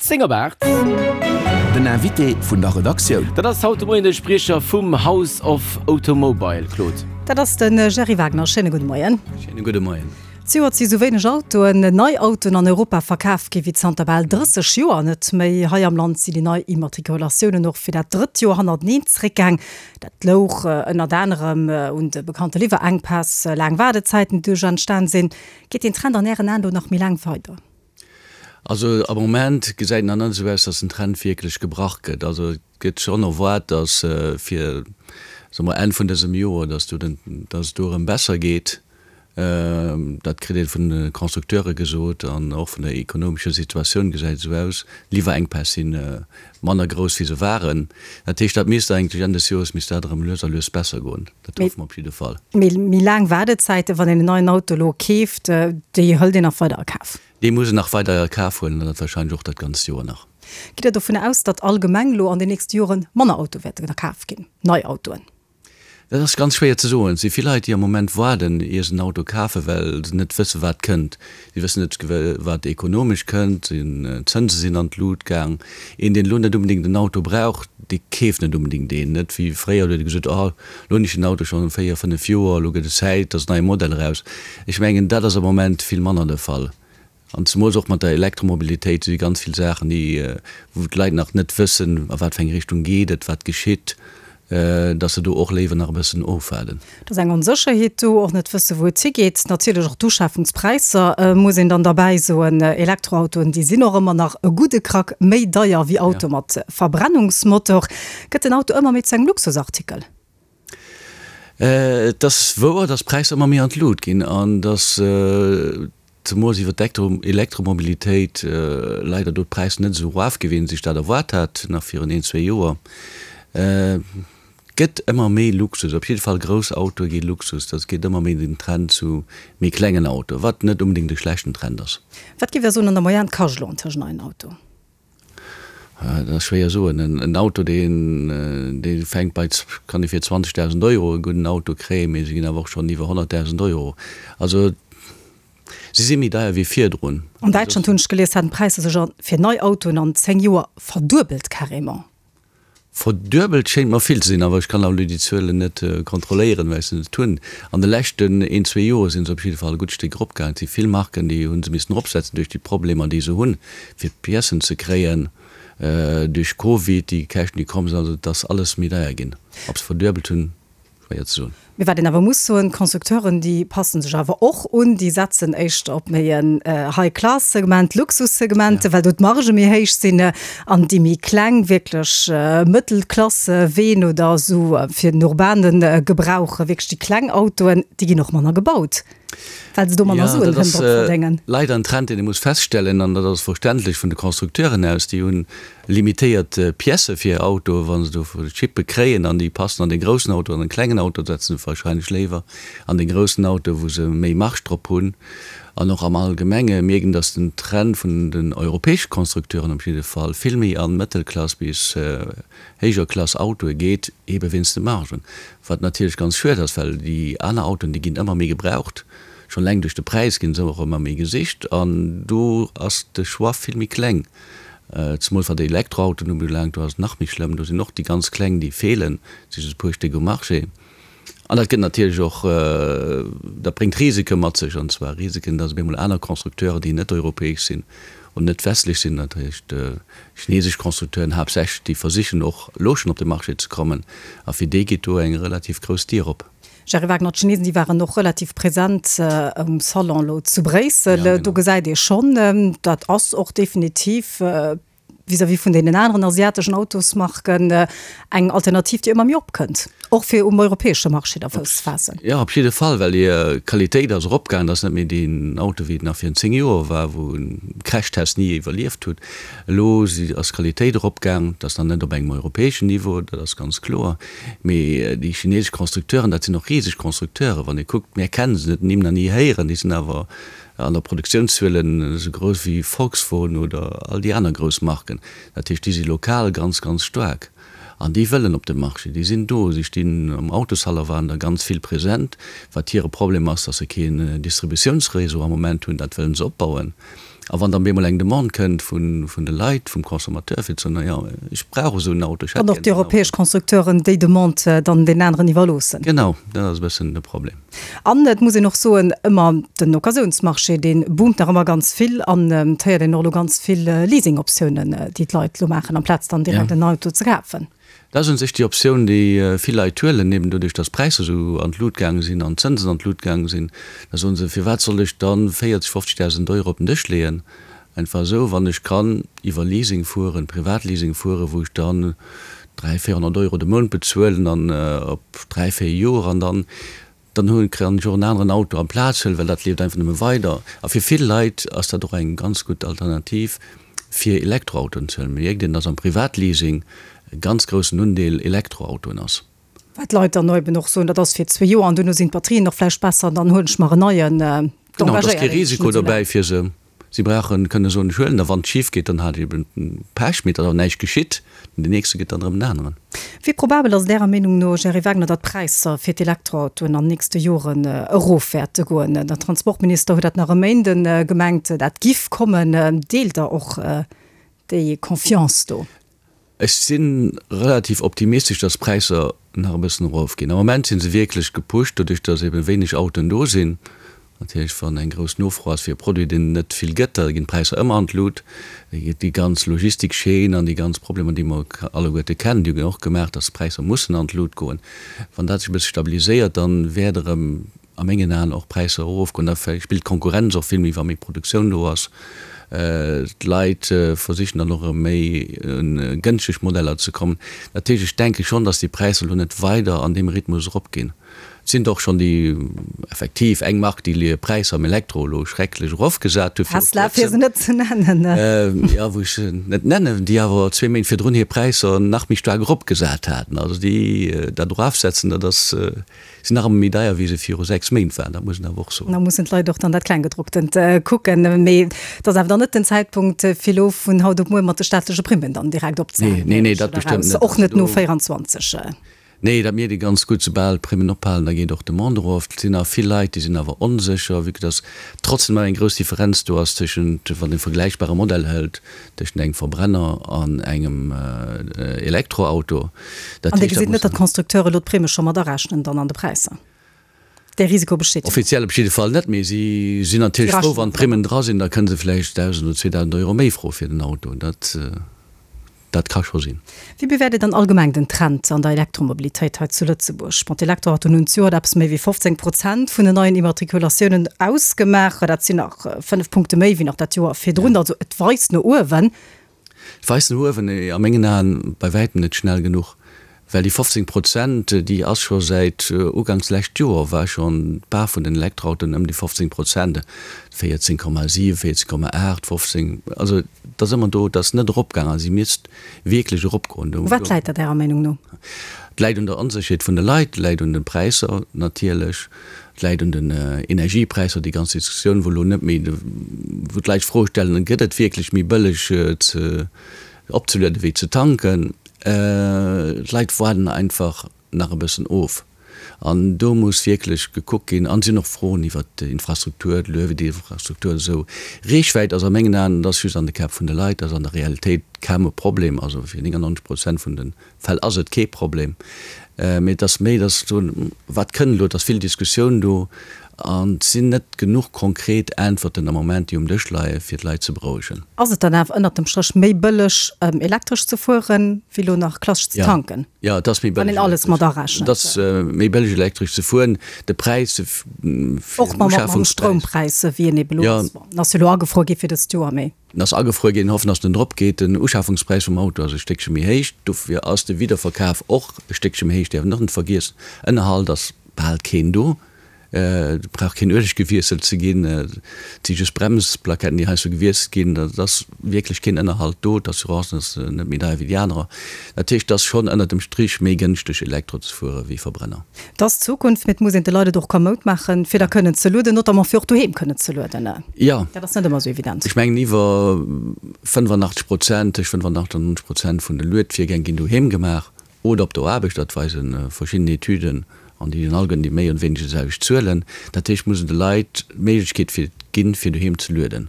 10 op 8. Den Invité vun der Redaktioun. Dat ass haut de Moien de Spriecher vum House of Automobile, Claude. Dat ass de Gerry Wagner. Schéine gudde Moien. Schéine gudde Moien. Zejoert si sou wéineg Autoen, nei Autoen an Europa verkaf gi wéi zanter bal 30 Joer net méi. Hei am Land sinn déi nei Immatrikulatiounen och fir dat drëtt Joer hannerteneen zeréckgaang. Dat louch ënnert anerem un de bekannte Liwwerenkpäss, laang Waardezäiten, déi doduerch entstan sinn. Geet deen Trend an Ären Aen do nach méi laang weider? Also am Moment gesäit et nach net esou aus, datt den Trend wierklech gebrach gëtt. Also et gëtt schonn erwaart, datt fir, soe mer, Enn vun dësem Joer, datt do den, datt et do erëm besser geet. Dat kritt ee vun de Constructeure gesot an och vun der ekonomescher Situatioun gesäit et esou aus. D'Liwwerenkpäss si manner grouss wéi se waren. Dat heescht, dat misst eigentlech Enn des Joers misst dat erëm lues a lues besser goen. Dat hoffe mer op jidde Fall. Mee méi laang Waardezäiten, wann een en neien Auto elo keeft, déi hëlt een nach weider a Kaf? Déi muss een nach weider a Kaf huelen an dat warscheinlech och dat ganzt Joer nach. Gitt Der dovun aus, datt allgemeng elo an den nächste Jore manner Autoe wäerten a Kaf ginn, nei Autoen? Dat ass ganz schwéier ze soen. Et si vill Leit, déi am Moment waarden, ier se en Auto kafen, well se net wëssen, wat kënnt. Si wëssen net, wat ekonomesch kënnt. D'Zënse sinn an d'Lut gaang. Een, deen elo net onbedéngt en Auto brauch, dee keeft net onbedéngt een. Net wéi fréier, do huet ee gesot, Oh, elo hunn ech den Auto schonn véier, fënnef Joer, elo gëtt et Zäit, dass en neie Modell eraus. Ech mengen, dat ass am Moment vill manner de Fall. An zemools och mat der Elektromobilitéit si ganz vill Saachen, déi, wou d'Leit nach net wëssen, a wat fir eng Richtung geet et, wat geschitt, dass se do och léiwer nach e bëssen ofwaarden. Et ass eng Onsécherheet do, och net wësse wou et higeet. Natierlech och d'Uschafungspräisser, muss een dann derbäi soen. Elektroautoen, déi sinn och ëmmer nach e gudde Krack méi deier wéi Autoe mat Verbrennungsmotor. Gëtt den Auto ëmmer méi zu engem Luxusartikel? Et ass wouer, dass d'Präisser ëmmer méi an d'Lut ginn an dass zemools iwwer d'Elektromobilitéit leider do d'Präisser net esou erof gi wéi een sech dat erwaart hat nach virun een, zwee Joer. Et gëtt ëmmer méi Luxus, op jidde Fall grouss Autoe gi Luxus, dat geet ëmmer méi den Trend zu méi klengen Autoe, wat net onbedéngt e schlechten Trend ass. Wat géif Der soen an der Moyenne kascht elo antëscht en neien Auto? Dat ass schwéier soen. En Auto, deen, dee fänkt bei, kann ee fir 20.000 Euro e gudden Auto kréien, mee se ginn awer och schonn iwwer 100.000 Euro. Also se si méi deier wéi virdrun. An Däitschland, hunn ech gelies, haten d'Präisser sech a fir nei Autoen an 10 Joer verduebelt carrément. Verduebelt schéint mer vill ze sinn, awer ech kann elo déi Zuelen net kontrolléieren, well ech se net hunn. An de leschten een, zwee Joer si se op jidde Fall e gutt Stéck eropgaangen. Et si vill Marken, déi hu se missen eropsetzen duerch déi Problemer, déi se hunn, fir d'Piècen ze kréien, duerch Covid, déi Käschten, déi komm sinn. Also et ass alles méi deier ginn. Ob se verduebelt hunn, schwéier ze soen. Mee wat een awer muss soen, d'Constructeuren, déi passen sech awer och un, déi setzen éischter op méi en High-Class-Segment, Luxussegment, well do d'Margë méi héich sinn, an déi méi kleng, wierklech Mëttelklass-Ween oder esou fir den urbane Gebrauch, wierklech déi kleng Autoen, déi ginn och manner gebaut, well se do manner Suen kënnen drop verdéngen. Jo, dat ass leider en Trend, deen ee muss feststellen, an dat ass verständlech vun de Constructeuren aus. Déi hunn Limitéiert Piècë fir hir Autoen, wa se do Chippe kréien an déi passen an dee groussen Auto, an den klengen Auto setzen se wahrscheinlech léiwer an dee groussen Auto, wou se méi Marge drop hunn. An och am Allgemenge mierkt een, datt den Trend vun den europäesche Constructeuren op jidde Fall vill méi an Mëttelklass bis héijer Klass Autoe geet, eebe wéinst de Margen. Wat natierlech ganz schued ass, well déi aner Autoen, déi ginn ëmmer méi gebraucht, schonn eleng duerch de Präis ginn se och ëmmer méi gesicht an do ass de Choix vill méi kleng. Zemools wat Elektroautoen ubelaangt, do ass et nach méi schlëmm. Do sinn och déi ganz kleng, déi feelen, et si just e puer Stéck um Marché. An dat gëtt natierlech och, dat bréngt Risike mat sech, an zwar Risiken, datt op eemol aner Constructeuren, déi net europäesch sinn oder net westlech sinn, dat heescht chinesesch Constructeuren haaptsächlech, déi versichen och elo schonn op de Marché ze kommen, a fir déi geet do eng relativ grouss Dier op. Gerry Wagner, D'Chinesen, déi waren och relativ present um Salon elo zu Bréissel. Do gesäit ee schonn, dat ass och definitiv vis-à-vis vun deenen aneren asiateschen Autosmarken eng Alternativ, déi ëmmer méi opkënnt, och fir um europäesche Marché da Fouss ze faassen. Jo, op jidde Fall, well hir Qualitéit ass eropgaangen. Dat ass net méi deen Auto, wéi et nach virun 10 Joer war, wou en Crashtest ni iwwerlieft hutt. Elo ass d'Qualitéit eropgaang. Dat ass nach net op engem europäeschen Niveau, dat ass ganz kloer. Mee déi chinesesch Constructeuren, dat sinn och riseg Constructeuren. Wann ee kuckt, mär kennen se net, Nimm nach ni héieren, déi sinn awer an der Produktiounszuelen esou grouss wéi Volkswogen oder all déi aner grouss Marken. Dat heescht, déi si lokal ganz, ganz staark an déi wëllen op de Marché. Déi sinn do, si stinn am Autoshaller, waren der ganz vill present. Wat hire Problem ass, datt se keen Distributiounsréseau am Moment hunn, dat wëllen se opbauen. A wann dann bemol eng Demande kënnt vun de Leit, vum Consommateur, fir ze soen, jo, ech brauch esou en Auto, ech hätt gär esou en Auto. An och déi europäesch Constructeuren déi Demande dann deenen aneren iwwerloossen. Genau, dat ass e bëssen de Problem. An et muss een och soen, ëmmer den Occasiounsmarché, dee boomt nach ëmmer ganz vill an et héiert een och elo ganz vill Leasingoptiounen, déi d'Leit elo maachen, amplaz dann direkt en Auto ze kafen. Dat ass un sech déi Optioun, déi vill Leit huelen, eben doduerch, datt d'Präisser esou an d'Lut gaange sinn an d'Zënsen an d'Lut gaange sinn. Da soen se, Firwat soll ech dann 40, 50.000 Euro op den Dësch leeën, einfach esou, wann ech kann iwwer Leasing fueren, Privatleasing fueren, wou ech dann 300, 400 Euro de Mount bezuelen an op dräi, véier Joer an dann Dann hu kann ech och en aneren Auto amplaz huelen, well dat leeft einfach nëmme weider. A fir vill Leit ass dat och eng ganz gutt Alternativ, fir Elektroautoen ze huelen. Mierkt een, dass am Privatleasing e ganz groussen Undeel Elektroautoen ass. Wat d'Leit dann eben och soen, dat ass fir zwee Joer an duerno sinn d'Batterien och vläicht besser, dann huelen ech mer en neien. Genau, et ass kee Risiko dobäi fir se. Si brauchen kënne soen, ech huelen der, wann et schif geet, dann hat ech eben Pech, mee et ass awer näischt geschitt. Den nächste gëtt dann erëm en aneren. Wéi probabel ass et Ärer Meenung no, Gerry Wagner, datt d'Präisser fir d'Elektroautoen an nächste Joren erof wäerte goen? Den Transportminister huet dat nach e Méinden gemengt, dat giff kommen. Deelt Der och déi Confiance do? Ech si relativ optimistesch, dass d'Präisser nach e bëssen erofginn. Am Moment si se wierklech gepusht, doduerch dass ebe wéineg Autoen do sinn. Natierlech, wann eng grouss Nofro ass fir e Produit, deen et net vill gëtt, da ginn d'Präisser ëmmer an d'Lut. Déi ganz Logistikchaîne an déi ganz Problemer, déi mer alleguerte kennen, déi hunn och gemaach, dass d'Präisser mussen an d'Lut goen. Wann dat sech e bësse stabiliséiert, dann wäert erëm a mengen Aen och d'Präisser erofgoen. Da spillt d'Konkurrenz och vill méi, wa méi Produktioun do ass. D'Leit versichen dann och erëm méi un gënschteg Modeller ze kommen. Dat heescht, ech denke schonn, datt déi Präisser elo net weider an deem Rhythmus eropginn. Et sinn der och schonn, déi effektiv eng Mark, déi hir Präisser am Elektro elo schrecklech erofgesat hu viru kuerzem. Tesla, fir se net ze nennen. Jo, wou ech se net nennen, déi awer zwee Méint virdrun hir Präisser nach méi staark eropgesat haten. Also déi dat erofsetzen, dat ass Sinn nach ëmmer méi deier wéi se viru 6 Méint waren, dat muss een awer och soen. Da mussen d'Leit och dann dat Klenggedrucktent kucken. Mee et ass awer dann net den Zäitpunkt, fir elo vun haut op muer mat de staatleche Primmen dann direkt opzehalen. Nee, nee, dat bestëmmt net. Och net no 24. Nee, dat mierkt ee ganz gutt, soubal d'Primmen ophalen, da geet och d'Demande erof. Et sinn awer vill Leit, déi sinn awer onsécher, vue que dass trotzdem nach eng grouss Differenz do ass tëschent, wann ee vergläichbare Modell hëlt, Tëschent engem Verbrenner an engem Elektroauto. Dat An Dir gesitt net, datt d'Constructeure elo d'Primme scho mat arechnen dann an de Präisser? Dee Risiko besteet jo. Offiziell op jidde Fall net, mee si sinn natierlech frou, wann d'Primmen dra sinn. Da kënne se vläicht 1.000 oder 2.000 Euro méi froe fir den Auto. Dat, dat ka scho sinn. Wéi bewäert Dir dann allgemeng den Trend an der Elektromobilitéit hei zu Lëtzebuerg? Bon, d'Elektroautoen hunn zejoert eppes méi wéi 15 Prozent vun den neien Immatrikulatiounen ausgemaach. Dat sinn nach 5 Punkte méi wéi nach dat Joer virdrun. Also et weist no uewen. Et weist no uewen, mee a mengen Aen bei wäitem net schnell genuch. Well déi 15 Prozent, déi ass scho säit uganks lescht Joer war schonn d'Part vun den Elektroautoen ëm déi 15 Prozent, 14,7, 14,8, 15, also et ass ëmmer do, et ass net eropgaangen a si misst wierklech eropgoen. U wat läit dat Ärer Meenung no? Et läit un der Onsécherheet vun de Leit, et läit un de Präisser natierlech, et läit un den Energiepräisser, déi ganz Diskussioun, wou elo net méi, wou d'Leit d'Fro stellen, gëtt et wierklech méi bëlleg ze opzelueden wéi ze tanken. D'Leit waarden einfach nach e bëssen of an do muss wierklech gekuckt ginn. An et sinn och Froen iwwert d'Infrastruktur, d'Luedinfrastruktur esou. Reechwäit ass a mengen Aen, dat ass just an de Käpp vun de Leit, dat ass an der Realitéit kaum e Problem. Also fir 99 Prozent vun de Fäll ass et kee Problem. Mee et ass méi, dass soen, wat kënnt elo, et ass vill Diskussioun do an et sinn net genuch konkret Äntwerten am Moment, déi um Dësch leie fir d'Leit ze berouegen. Ass et dann awer ënnert dem Stréch méi bëlleg elektresch ze fueren, wéi elo nach klassesch ze tanken? Jo, et ass méi bëlleg. Wann een alles mat arechent. Et ass méi bëlleg elektresch ze fueren. De Präis fir den Uschafungspräis. Och mam Stroumpräis, wéi en ebe elo ass. Bon, en ass jo elo agefruer gi fir dëst Joer, mee. En ass agefruer ginn, hoffen dass en drop geet. Den Uschafungspräis vum Auto ass e Stéckche méi héich, dofir ass de Wiederverkaf och e Stéckche méi héich, däerf een och net vergiessen. Ënnerhalt ass bal keen do, et brauch keen Ueleg gewiesselt ze ginn, et si just Bremsplaketten déi heiansdo gewiesselt ginn, et ass wierklech keen Ënnerhalt do, d'Assurance ass net méi deier wéi déi anerer. Dat heescht, et ass schonn ënnert dem Strich méi gënschteg Elektro ze fuere wéi Verbrenner. Et ass d'Zukunft, mee et muss een de Leit et och kamoud maachen, fir da kënnen ze lueden, notamment fir och doheem kënnen ze lueden. Jo. Dat ass net ëmmer esou evident. Ech mengen iwwer 85 Prozent, tëscht 85 an 90 Prozent vun de Luedvirgäng ginn doheem gemaach oder op der Aarbecht. Dat weise verschidden Etüden an déi hunn alleguerten déi méi oder wéineger déi selwecht Zuelen. Dat heescht, et muss een de Leit d'Méiglechkeet fir ginn, fir doheem ze lueden.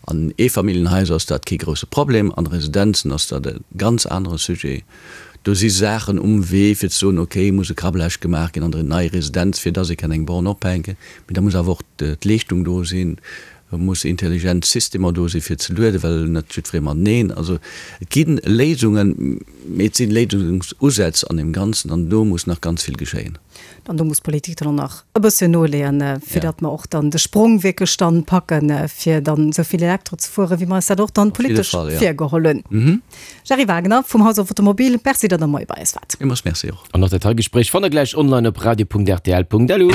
An Eefamilljenhaiser ass dat kee grousse Problem, an Residenzen ass dat e ganz anere Sujet. Do si Saachen um Wee fir ze soen, okay, muss e Krablage gemaach ginn an der nei Residenz, fir dass ee kann eng Borne ophänken. Mee da muss awer och d'Leeschtung do sinn, et musse intelligent Systemer do sinn, fir ze lueden, well net jiddweree mateneen. Also et gi Léisungen, mee et si Léisungsusätz an deem Ganzen an do muss nach ganz vill geschéien. An do muss d'Politik dann och nach e bësschen noleeën, fir datt mer och dann de Sprong wierklech dann packen, fir dann esou vill Elektro ze fueren, wéi mer eis dat och dann politesch virgeholl hunn. Gerry Wagner vum House of Automobile, Merci, datt Der moie bei eis waart. Villmools Merci och. An och dat hei Gespréich fannt der gläich online op radio.rtl.lu.